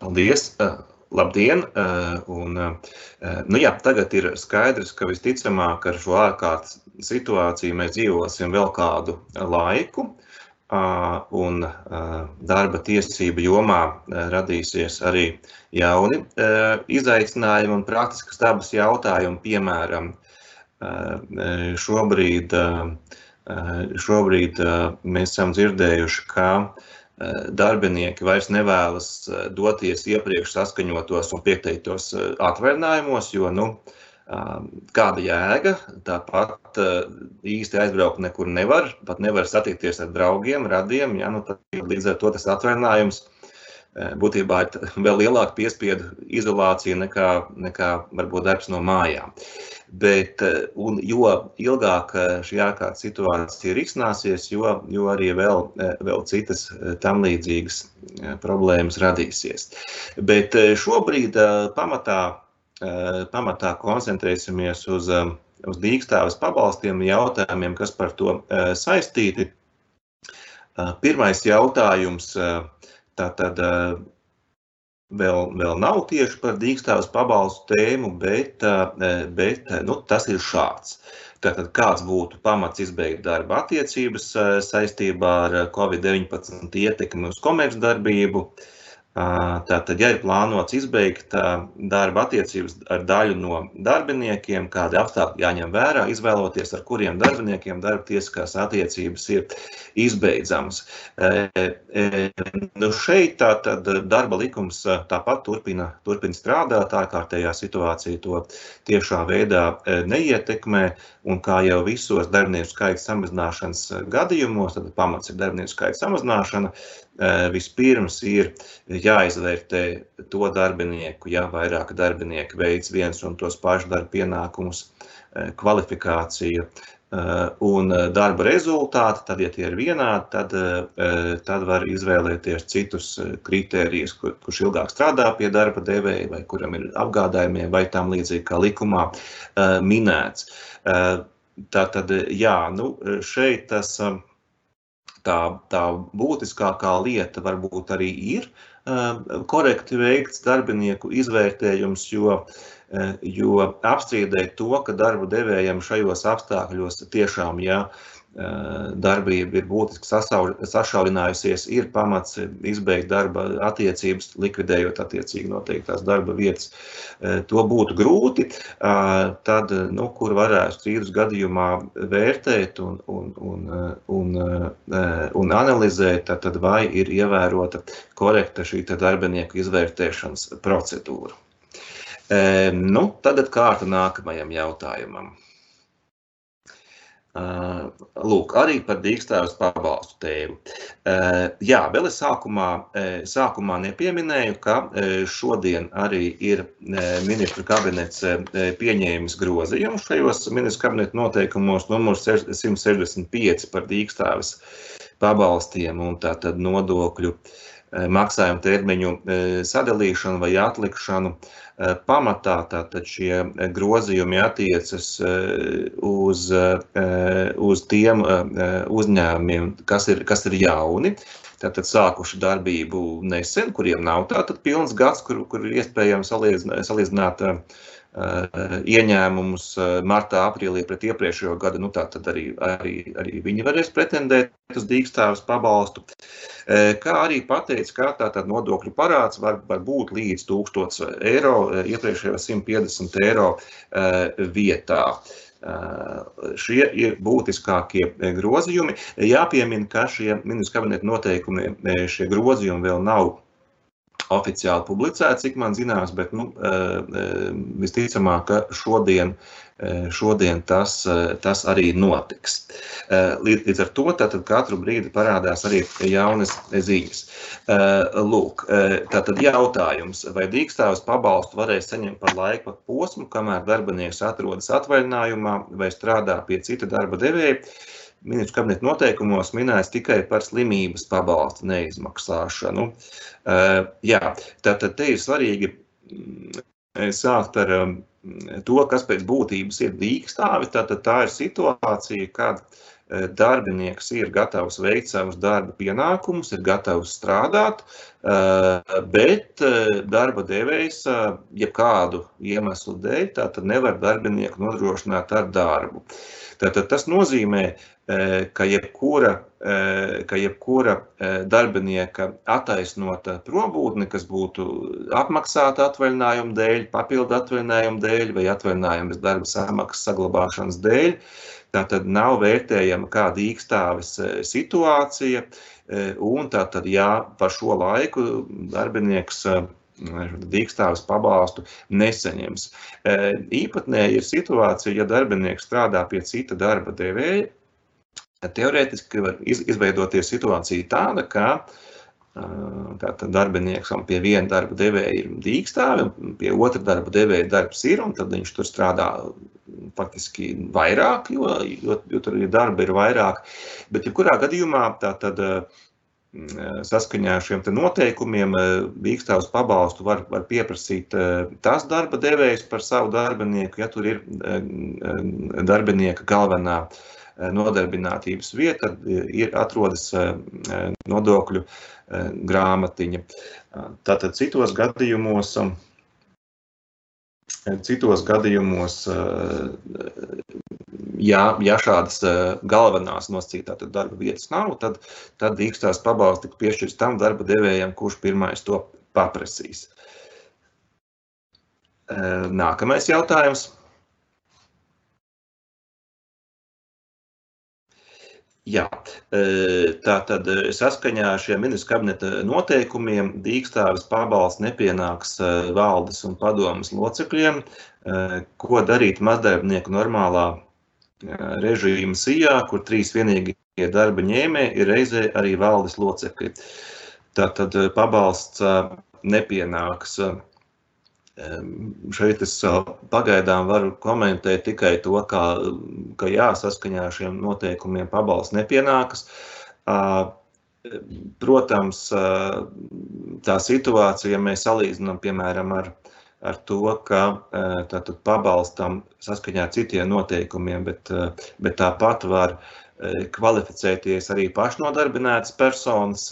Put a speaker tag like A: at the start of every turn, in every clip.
A: Paldies! Labdien! Tagad ir skaidrs, ka visticamāk ar šo ārkārtas situāciju mēs dzīvosim vēl kādu laiku, un darba tiesību jomā radīsies arī jauni izaicinājumi un praktiskas dabas jautājumi, piemēram, šobrīd mēs esam dzirdējuši, ka darbinieki vairs nevēlas doties iepriekš saskaņotos un pieteiktos atvaļinājumos, jo, kāda jēga, tāpat īsti aizbraukt nekur nevar, pat nevar satikties ar draugiem, radiem, tad līdz ar to tas atvaļinājums būtībā ir vēl lielāka piespiedu izolācija nekā varbūt darbs no mājām. Jo ilgāk šī ārkārtas situācija risināsies, jo arī vēl citas tam līdzīgas problēmas radīsies. Bet šobrīd pamatā koncentrēsimies uz dīkstāves pabalstiem jautājumiem, kas par to saistīti. Pirmais jautājums tātad vēl nav tieši par dīkstāves pabalstu tēmu, bet tas ir šāds. Tātad kāds būtu pamats izbeigt darba attiecības saistībā ar Covid-19 ietekmi uz komercdarbību? Tātad, ja ir plānots izbeigt darba attiecības ar daļu no darbiniekiem, kādi apstākļi jāņem vērā, izvēloties, ar kuriem darbiniekiem darba tiesiskās attiecības ir izbeidzamas. Šeit tātad darba likums tāpat turpina strādāt, ārkārtējā situācija to tiešā veidā neietekmē, un kā jau visos darbinieku skaita samazināšanas gadījumos, tad pamats ir darbinieku skaita samazināšana, vispirms ir jāizvērtē to darbinieku, ja vairāk darbinieki veic viens un tos pašus darba pienākumus, kvalifikācija un darba rezultāti, tad, ja tie ir vienādi, tad var izvēlēties citus kritērijus, kurš ilgāk strādā pie darba devēja, vai kuram ir apgādājumie, vai tam līdzīgi kā likumā minēts. Tātad, šeit tas tā būtiskākā lieta varbūt arī ir korekti veikts darbinieku izvērtējums, jo apstrīdēt to, ka darba devējiem šajos apstākļos tiešām, darbība ir būtiski sašaurinājusies, ir pamats izbeigt darba attiecības, likvidējot attiecīgi noteiktās darba vietas. To būtu grūti, tad, kur varētu strīdus gadījumā vērtēt un analizēt, tad vai ir ievērota korekta šī darbinieku izvērtēšanas procedūra. Tagad kārta nākamajam jautājumam. Lūk, arī par dīkstāves pabalstu tēmu. Vēl es sākumā nepieminēju, ka šodien arī ir ministru kabinets pieņēmis grozījumus šajos ministru kabineta noteikumos numurs 165 par dīkstāves pabalstiem un tātad nodokļu maksājumu termiņu sadalīšanu vai atlikšanu. Pamatā tātad šie grozījumi attiecas uz tiem uzņēmumiem, kas ir jauni, tātad sākuši darbību nesen, kuriem nav tātad pilns gads, kur ir iespējams salīdzināt ieņēmumus martā, aprīlī pret iepriekšējo gadu, tātad arī viņi varēs pretendēt uz dīkstāves pabalstu. Kā arī pateica, ka tātad nodokļu parāds var būt līdz 1000 eiro, iepriekšējo 150 eiro vietā. Šie ir būtiskākie grozījumi. Jāpiemina, ka šie ministru kabineta noteikumi, šie grozījumi vēl nav oficiāli publicēti, cik man zināms, bet visticamāk, ka šodien tas arī notiks. Līdz ar to tātad katru brīdi parādās arī jaunas ziņas. Lūk, tātad jautājums, vai dīkstāves pabalstu varēs saņemt par laika posmu, kamēr darbinieks atrodas atvaļinājumā vai strādā pie cita darba devēja. Ministru kabineta noteikumos minēts tikai par slimības pabalstu neizmaksāšanu. Tātad te ir svarīgi sākt ar to, kas pēc būtības ir dīkstāve. Tātad tā ir situācija, kad darbinieks ir gatavs veikt savus darba pienākumus, ir gatavs strādāt, bet darba devējs jebkādu iemeslu dēļ tātad nevar darbinieku nodrošināt ar darbu. Tātad tas nozīmē, ka jebkura darbinieka attaisnota probūtne, kas būtu apmaksāta atvaļinājuma dēļ, papildu atvaļinājuma dēļ vai atvaļinājuma bez darba samaksas saglabāšanas dēļ, tātad nav vērtējama kā dīkstāves situācija, un tātad, ja par šo laiku darbinieks dīkstāves pabalstu nesaņems. Īpatnēji ir situācija, ja darbinieks strādā pie cita darba devēja, teorētiski var izveidoties situācija tāda, ka tātad darbinieks pie viena darba devēja ir dīkstāve, pie otra darba devēja darbs ir, un tad viņš tur strādā faktiski vairāk, jo tur darba ir vairāk. Bet jebkurā gadījumā tātad saskaņā ar šiem noteikumiem dīkstāves pabalstu var pieprasīt tas darba devējs par savu darbinieku, ja tur ir darbinieka galvenā nodarbinātības vieta, atrodas nodokļu grāmatiņa. Tātad citos gadījumos, ja šādas galvenās nosacītā darba vietas nav, tad dīkstāves pabalsts tiks piešķirts tam darba devējam, kurš pirmais to paprasīs. Nākamais jautājums. Jā, tātad saskaņā ar šiem ministru kabineta noteikumiem dīkstāves pabalsts nepienāks valdes un padomes locekļiem, ko darīt mazdarbnieku normālā režīma sijā, kur 3 vienīgie darba ņēmēji ir reizē arī valdes locekļi. Tātad pabalsts nepienāks. Šeit es pagaidām varu komentēt tikai to, ka jā, saskaņā ar šiem noteikumiem pabalsts nepienākas. Protams, tā situācija, ja mēs salīdzinām, piemēram, ar to, ka tātad pabalstam saskaņā ar citiem noteikumiem, bet tāpat var kvalificēties arī pašnodarbinātas personas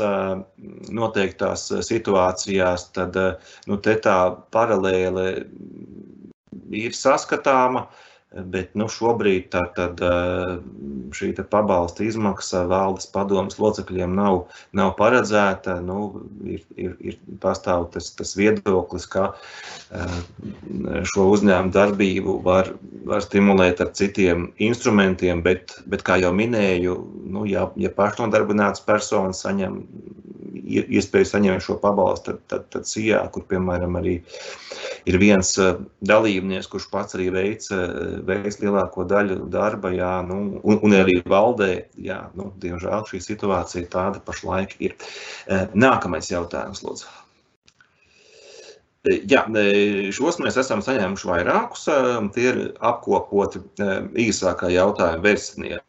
A: noteiktās situācijās, tad te tā paralēle ir saskatāma, bet šobrīd tātad šī pabalsta izmaksa valdes padomes locekļiem nav paredzēta. Ir pastāv tas viedoklis, ka šo uzņēmumu darbību var stimulēt ar citiem instrumentiem, bet kā jau minēju, ja pašnodarbinātas personas saņem iespēju saņemt šo pabalstu, tad sijā, kur, piemēram, arī ir viens dalībnieks, kurš pats arī veic lielāko daļu darba, jā, un arī valdē, jā, diemžēl šī situācija tāda pašlaik ir. Nākamais jautājums, lūdzu. Jā, šos mēs esam saņēmuši vairākus, tie ir apkopoti īsākā jautājuma versijā.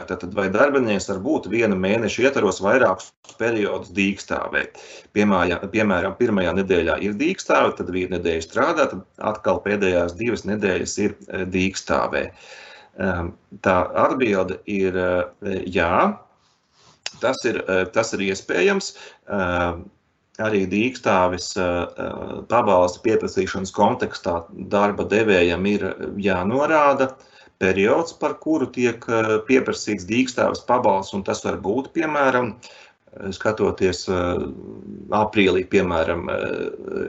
A: Tātad, vai darbinieks var būt viena mēneša ietvaros vairākus periodus dīkstāvē? Piemēram, pirmajā nedēļā ir dīkstāve, tad viena nedēļa strādā, tad atkal pēdējās 2 nedēļas ir dīkstāvē. Tā atbilde ir jā, tas ir iespējams. Arī dīkstāves pabalsta pieprasīšanas kontekstā darba devējam ir jānorāda periods, par kuru tiek pieprasīts dīkstāves pabalsts, un tas var būt, piemēram, skatoties aprīlī, piemēram,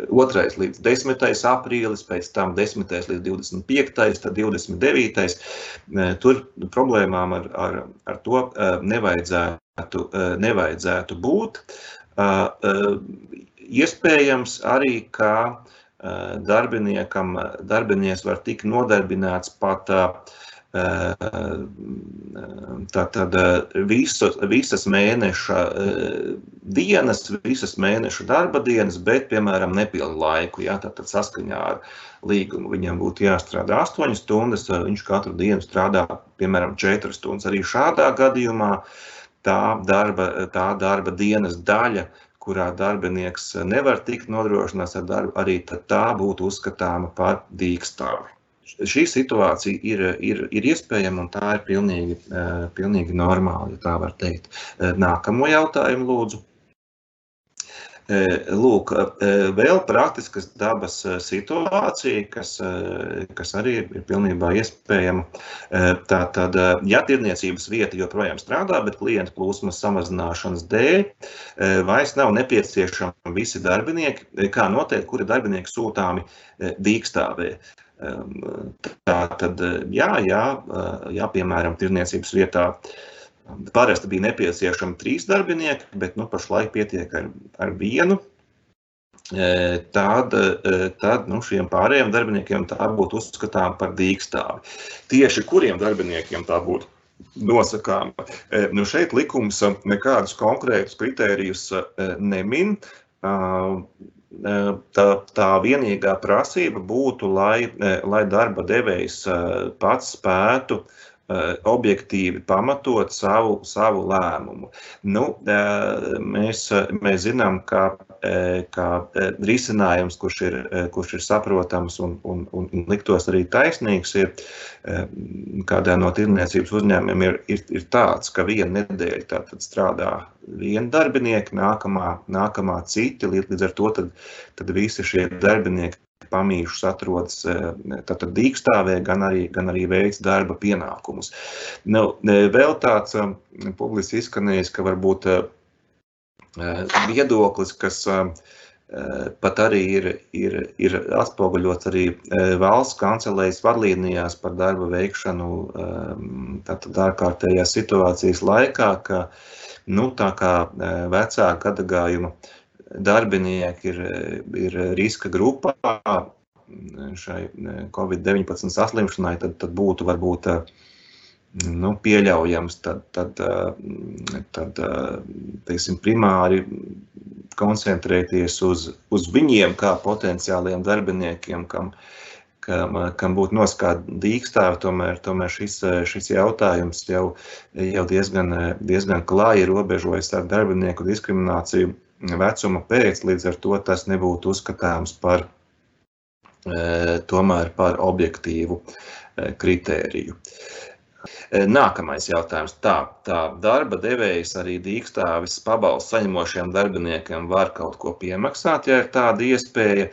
A: 2. līdz 10. aprīlis, pēc tam 10. līdz 25. tad 29. Tur problēmām ar to nevajadzētu būt. Iespējams arī, ka darbinieks var tikt nodarbināts pat tātad visas mēneša dienas, visas mēneša darba dienas, bet, piemēram, nepilnu laiku. Jā, tātad saskaņā ar līgumu viņam būtu jāstrādā 8 stundas, viņš katru dienu strādā, piemēram, 4 stundas. Arī šādā gadījumā tā darba dienas daļa, kurā darbinieks nevar tikt nodrošināts ar darbu, arī tā būtu uzskatāma par dīkstāvi. šī situācija ir iespējama un tā ir pilnīgi normāli, ja tā var teikt. Nākamo jautājumu lūdzu. Lūk, vēl praktiskas dabas situācija, kas arī ir pilnībā iespējama. Tātad, ja tirniecības vieta joprojām strādā, bet klientu plūsmas samazināšanas dēļ vairs nav nepieciešami visi darbinieki, kā noteikt, kuri darbinieki sūtāmi dīkstāvē. Tātad, jā, piemēram, tirniecības vietā parasti bija nepieciešami 3 darbinieki, bet pašlaik pietiek ar 1. Tad šiem pārējiem darbiniekiem tā būtu uzskatām par dīkstāvi. Tieši kuriem darbiniekiem tā būtu nosakāma? Šeit likums nekādus konkrētus kritērijus nemin. Tā vienīgā prasība būtu, lai darba devējs pats spētu objektīvi pamatot savu lēmumu. Mēs zinām, ka risinājums, kurš ir saprotams un liktos arī taisnīgs, ir kādā no tirniecības uzņēmumiem ir tāds, ka vienu nedēļu tātad strādā 1 darbinieki, nākamā citi, līdz ar to tad visi šie darbinieki pamīšus atrodas tātad dīkstāvē, gan arī veic darba pienākumus. Vēl tāds publiski izskanējis, ka varbūt viedoklis, kas pat arī ir atspoguļots arī valsts kancelējas vadlīnijās par darba veikšanu tātad ārkārtējās situācijas laikā, ka tā kā vecāka gadagājuma darbinieki ir riska grupā šai Covid-19 saslimšanai, tad būtu varbūt pieļaujams teiksim, primāri koncentrēties uz viņiem kā potenciāliem darbiniekiem, kam būtu nosakāta dīkstāve. Tomēr šis jautājums jau diezgan klāji robežojas ar darbinieku diskrimināciju vecuma pēc, līdz ar to tas nebūtu uzskatāms tomēr par objektīvu kritēriju. Nākamais jautājums. Tā darba devējs arī dīkstāves pabalstu saņemošiem darbiniekiem var kaut ko piemaksāt, ja ir tāda iespēja.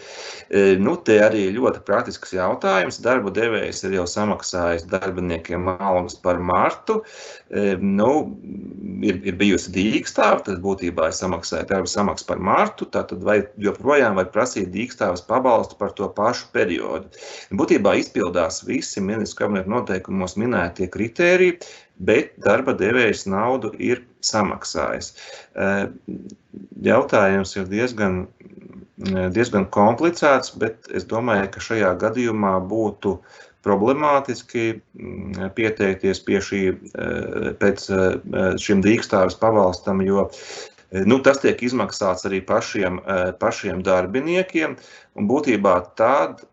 A: Te arī ļoti praktisks jautājums. Darba devējs ir jau samaksājis darbiniekiem algas par martu. Ir bijusi dīkstāve, tad būtībā ir samaksāja darba samaksu par martu, tātad vai joprojām var prasīt dīkstāves pabalstu par to pašu periodu. Būtībā izpildās visi ministru kabineta noteikumos minētie kritēriji, bet darba devējs naudu ir samaksājis. Jautājums ir diezgan komplicēts, bet es domāju, ka šajā gadījumā būtu problemātiski pieteikties pēc šim dīkstāves pabalstam, jo tas tiek izmaksāts arī pašiem darbiniekiem, un būtībā tāda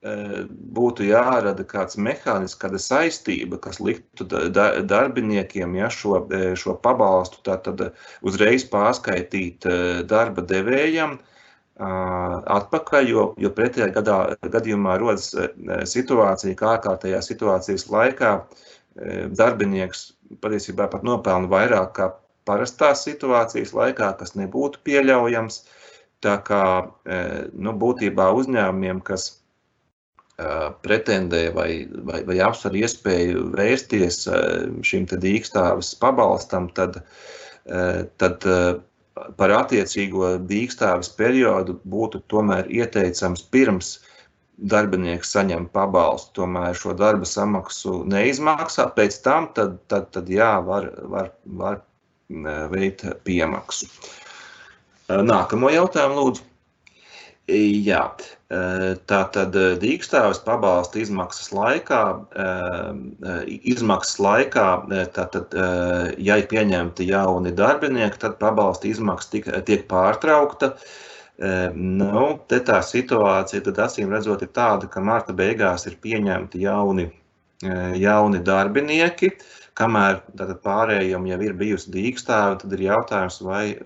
A: būtu jārada kāds mehānisms, kāda saistība, kas liktu darbiniekiem šo pabalstu tātad uzreiz pārskaitīt darba devējam atpakaļ, jo pretējā gadījumā rodas situācija, kā ārkārtējā situācijas laikā darbinieks patiesībā pat nopelna vairāk kā parastās situācijas laikā, kas nebūtu pieļaujams. Tā kā būtībā uzņēmumiem, kas pretendē vai apsver iespēju vērsties šim te dīkstāves pabalstam, tad par attiecīgo dīkstāves periodu būtu tomēr ieteicams pirms darbinieks saņem pabalstu, tomēr šo darba samaksu neizmaksāt, pēc tam tad jā, var veikt piemaksu. Nākamo jautājumu lūdzu. Jā, tātad dīkstāves pabalsta izmaksas laikā, tātad, ja ir pieņemti jauni darbinieki, tad pabalsta izmaksa tiek pārtraukta. Te tā situācija, tad acīm redzot, ir tāda, ka marta beigās ir pieņemti jauni darbinieki, kamēr tātad pārējiem jau ir bijusi dīkstāve, tad ir jautājums, vai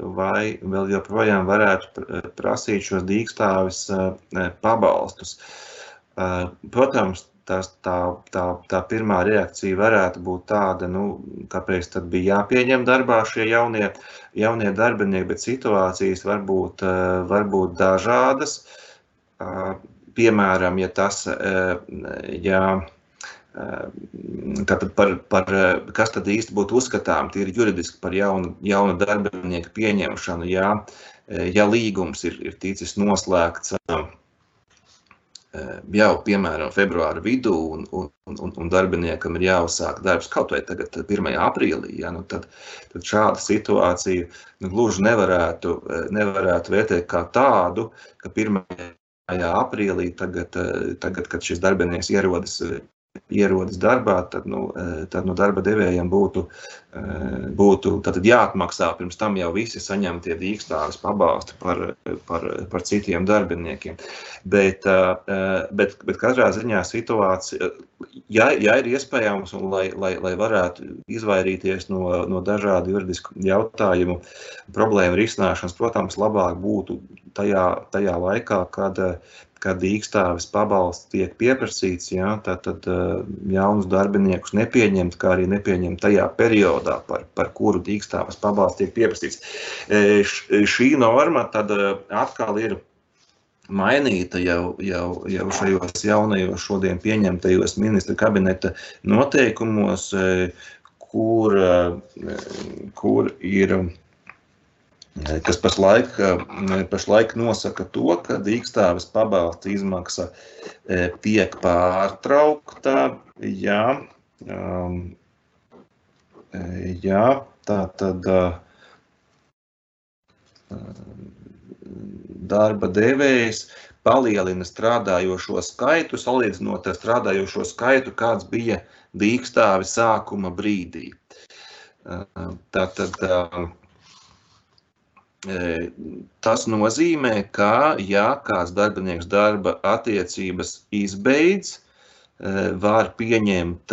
A: vēl joprojām varētu prasīt šos dīkstāves pabalstus. Protams, tā pirmā reakcija varētu būt tāda, kāpēc tad bija jāpieņem darbā šie jaunie darbinieki, bet situācijas var būt dažādas. Piemēram, ja tas, tātad kas tad īsti būtu uzskatām tīri juridiski par jaunu darbinieku pieņemšanu, ja līgums ir ticis noslēgts jau, piemēram, februāra vidū un darbiniekam ir jāuzsāk darbs kaut vai tagad 1. aprīlī, tad šāda situācija gluži nevarētu vērtēt kā tādu, ka 1. aprīlī tagad, kad šis darbinieks ierodas darbā, tad darba devējiem būtu tātad jāatmaksā pirms tam jau visi saņemtie dīkstāves pabalsti par citiem darbiniekiem. Bet katrā ziņā situācija, ja ir iespējams un lai varētu izvairīties no dažādu juridisku jautājumu problēmu risināšanas, protams, labāk būtu tajā laikā, kad dīkstāves pabalsts tiek pieprasīts, tad jaunus darbiniekus nepieņemt, kā arī nepieņemt tajā periodā, par kuru dīkstāves pabalsts tiek pieprasīts. Šī norma tad atkal ir mainīta jau šajos jaunajos šodien pieņemtajos ministra kabineta noteikumos, kur ir kas pašlaik nosaka to, ka dīkstāves pabalsta izmaksa tiek pārtraukta, tātad darba devējs palielina strādājošo skaitu, salīdzinot ar strādājošo skaitu, kāds bija dīkstāves sākuma brīdī. Tātad tas nozīmē, ka, ja kāds darbinieks darba attiecības izbeidz, var pieņemt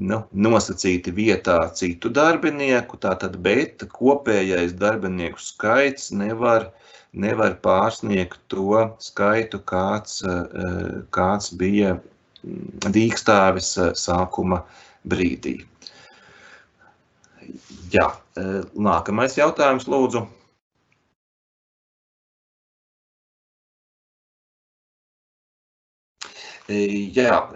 A: nosacīti vietā citu darbinieku, bet kopējais darbinieku skaits nevar pārsniegt to skaitu, kāds bija dīkstāves sākuma brīdī. Jā, nākamais jautājums, lūdzu. Jā,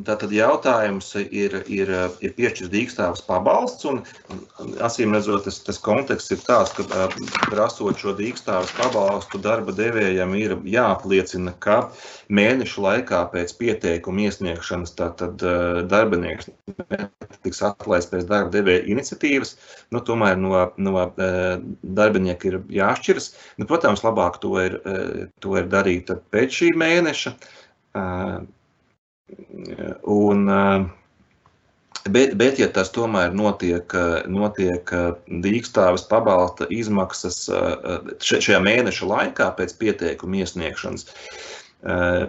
A: tātad jautājums ir piešķirts dīkstāves pabalsts, un acīm redzot, tas konteksts ir tāds, ka prasot šo dīkstāves pabalstu darba devējam ir jāapliecina, ka mēnešu laikā pēc pieteikuma iesniegšanas tātad darbinieks tiks atlaists pēc darba devēja iniciatīvas, tomēr no darbinieka ir jāšķiras. Protams, labāk to ir darīt pēc šī mēneša. Bet ja tas tomēr notiek dīkstāves pabalsta izmaksas šajā mēneša laikā pēc pieteikuma iesniegšanas,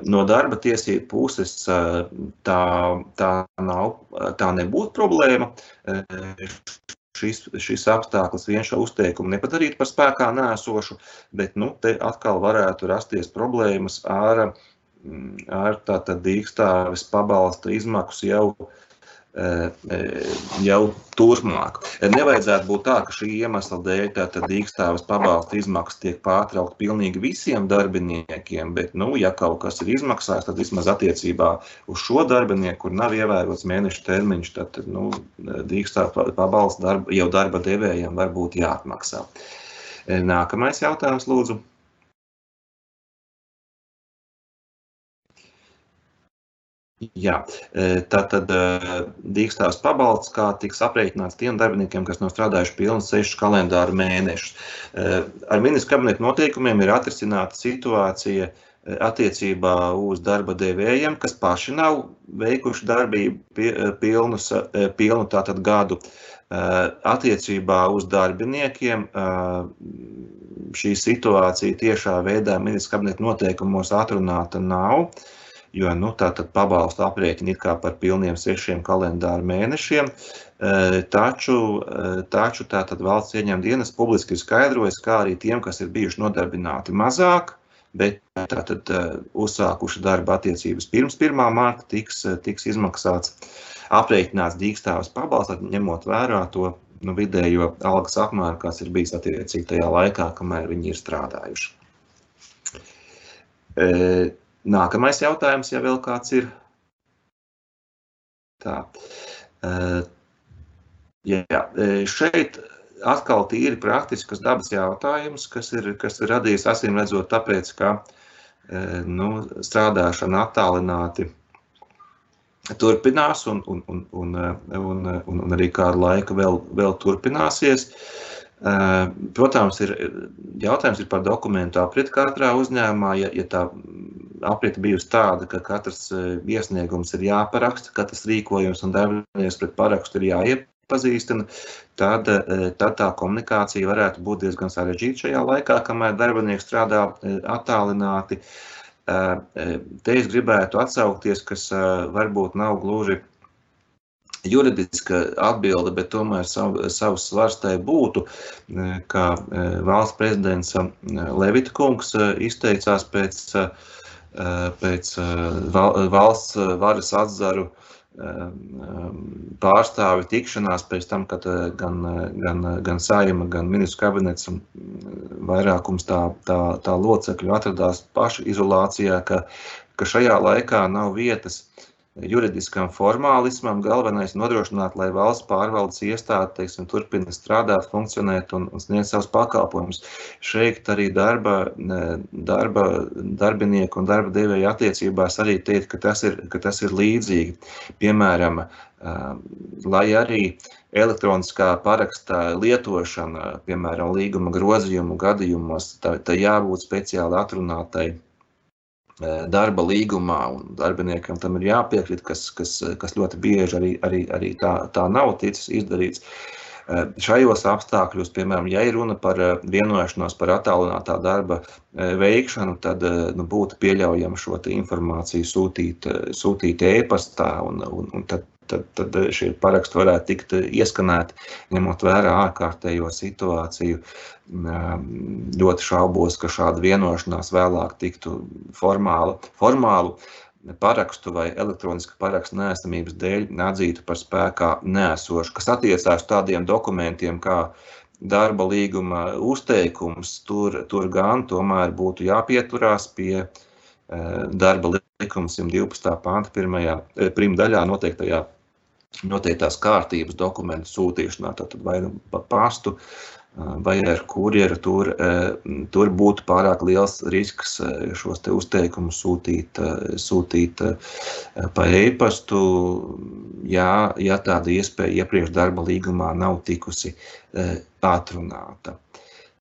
A: no darba tiesību puses tā nebūtu problēma. Šis apstākļus vien šo uzteikumu nepadarīt par spēkā nēsošu, bet te atkal varētu rasties problēmas ar tātad dīkstāves pabalsta izmaksu jau turpmāk. Nevajadzētu būt tā, ka šī iemesla dēļ tātad dīkstāves pabalsta izmaksas tiek pārtraukt pilnīgi visiem darbiniekiem, bet, ja kaut kas ir izmaksājis, tad vismaz attiecībā uz šo darbinieku, kur nav ievērots mēneša termiņš, tad, dīkstāves pabalsta jau darba devējiem var būt jāatmaksā. Nākamais jautājums, lūdzu. Jā, tātad dīkstāves pabalsts, kā tiks aprēķināts tiem darbiniekiem, kas nav strādājuši pilnus 6 kalendāru mēnešus. Ar ministra kabineta noteikumiem ir atrisināta situācija attiecībā uz darba devējiem, kas paši nav veikuši darbību pilnu tātad gadu. Attiecībā uz darbiniekiem šī situācija tiešā veidā ministra kabineta noteikumos atrunāta nav, jo tātad pabalstu aprēķina ir kā par pilniem 6 kalendāru mēnešiem, taču tātad valsts ieņēmuma dienests publiski ir skaidrojis, kā arī tiem, kas ir bijuši nodarbināti mazāk bet tātad uzsākuši darba attiecības pirms 1. marta tiks izmaksāts, aprēķināts dīkstāves pabalsts, ņemot vērā to vidējo algas apmēru, kas ir bijis attiecīgi tajā laikā, kamēr viņi ir strādājuši. Nākamais jautājums, ja vēl kāds ir. Tā. Šeit atkal tīri praktiskas dabas jautājums, kas ir radījis acīm redzot tāpēc, ka strādāšana attālināti turpinās un arī kādu laiku vēl turpināsies. Protams, jautājums ir par dokumentu apriti katrā uzņēmumā, ja tā aprita bijusi tāda, ka katrs iesniegums ir jāparaksta, katrs rīkojums un darbinieks pret parakstu ir jāiepazīstina, tad tā komunikācija varētu būt diezgan sarežģīta šajā laikā, kamēr darbinieks strādā attālināti. Te es gribētu atsaukties, kas varbūt nav gluži juridiska atbilde, bet tomēr savs svars tai būtu, ka valsts prezidents Levita kungs izteicās pēc valsts varas atzaru pārstāvi tikšanās pēc tam, kad gan Saeima, gan ministru kabinets un vairākums tā locekļu atradās paši izolācijā, ka šajā laikā nav vietas juridiskam formālismam, galvenais nodrošināt, lai valsts pārvaldes iestāde, teiksim, turpina strādāt, funkcionēt un sniegt savus pakalpojumus. Šeit arī darbinieku un darba devēja attiecībās arī teikt, ka tas ir līdzīgi. Piemēram, lai arī elektroniskā paraksta lietošana, piemēram, līguma grozījumu gadījumos, tā jābūt speciāli atrunātai darba līgumā, un darbiniekam tam ir jāpiekrīt, kas ļoti bieži arī tā nav ticis izdarīts. Šajos apstākļos, piemēram, ja ir runa par vienošanos par attālinātā darba veikšanu, tad būtu pieļaujama šo informāciju sūtīt e-pastā, un tad šie paraksti varētu tikt ieskanēti, ņemot vērā ārkārtējo situāciju. Ļoti šaubos, ka šāda vienošanās vēlāk tiktu formālu parakstu vai elektronisku parakstu neesamības dēļ atzītu par spēkā neesošu, kas attiecās tādiem dokumentiem kā darba līguma uzteikums, tur gan tomēr būtu jāpieturās pie darba likuma 112. panta pirmdaļā noteiktās kārtības dokumentu sūtīšanā, tātad vai pa pastu, vai ar kurjeru, tur būtu pārāk liels risks šos te uzteikumus sūtīt pa e-pastu, ja tāda iespēja iepriekš darba līgumā nav tikusi atrunāta.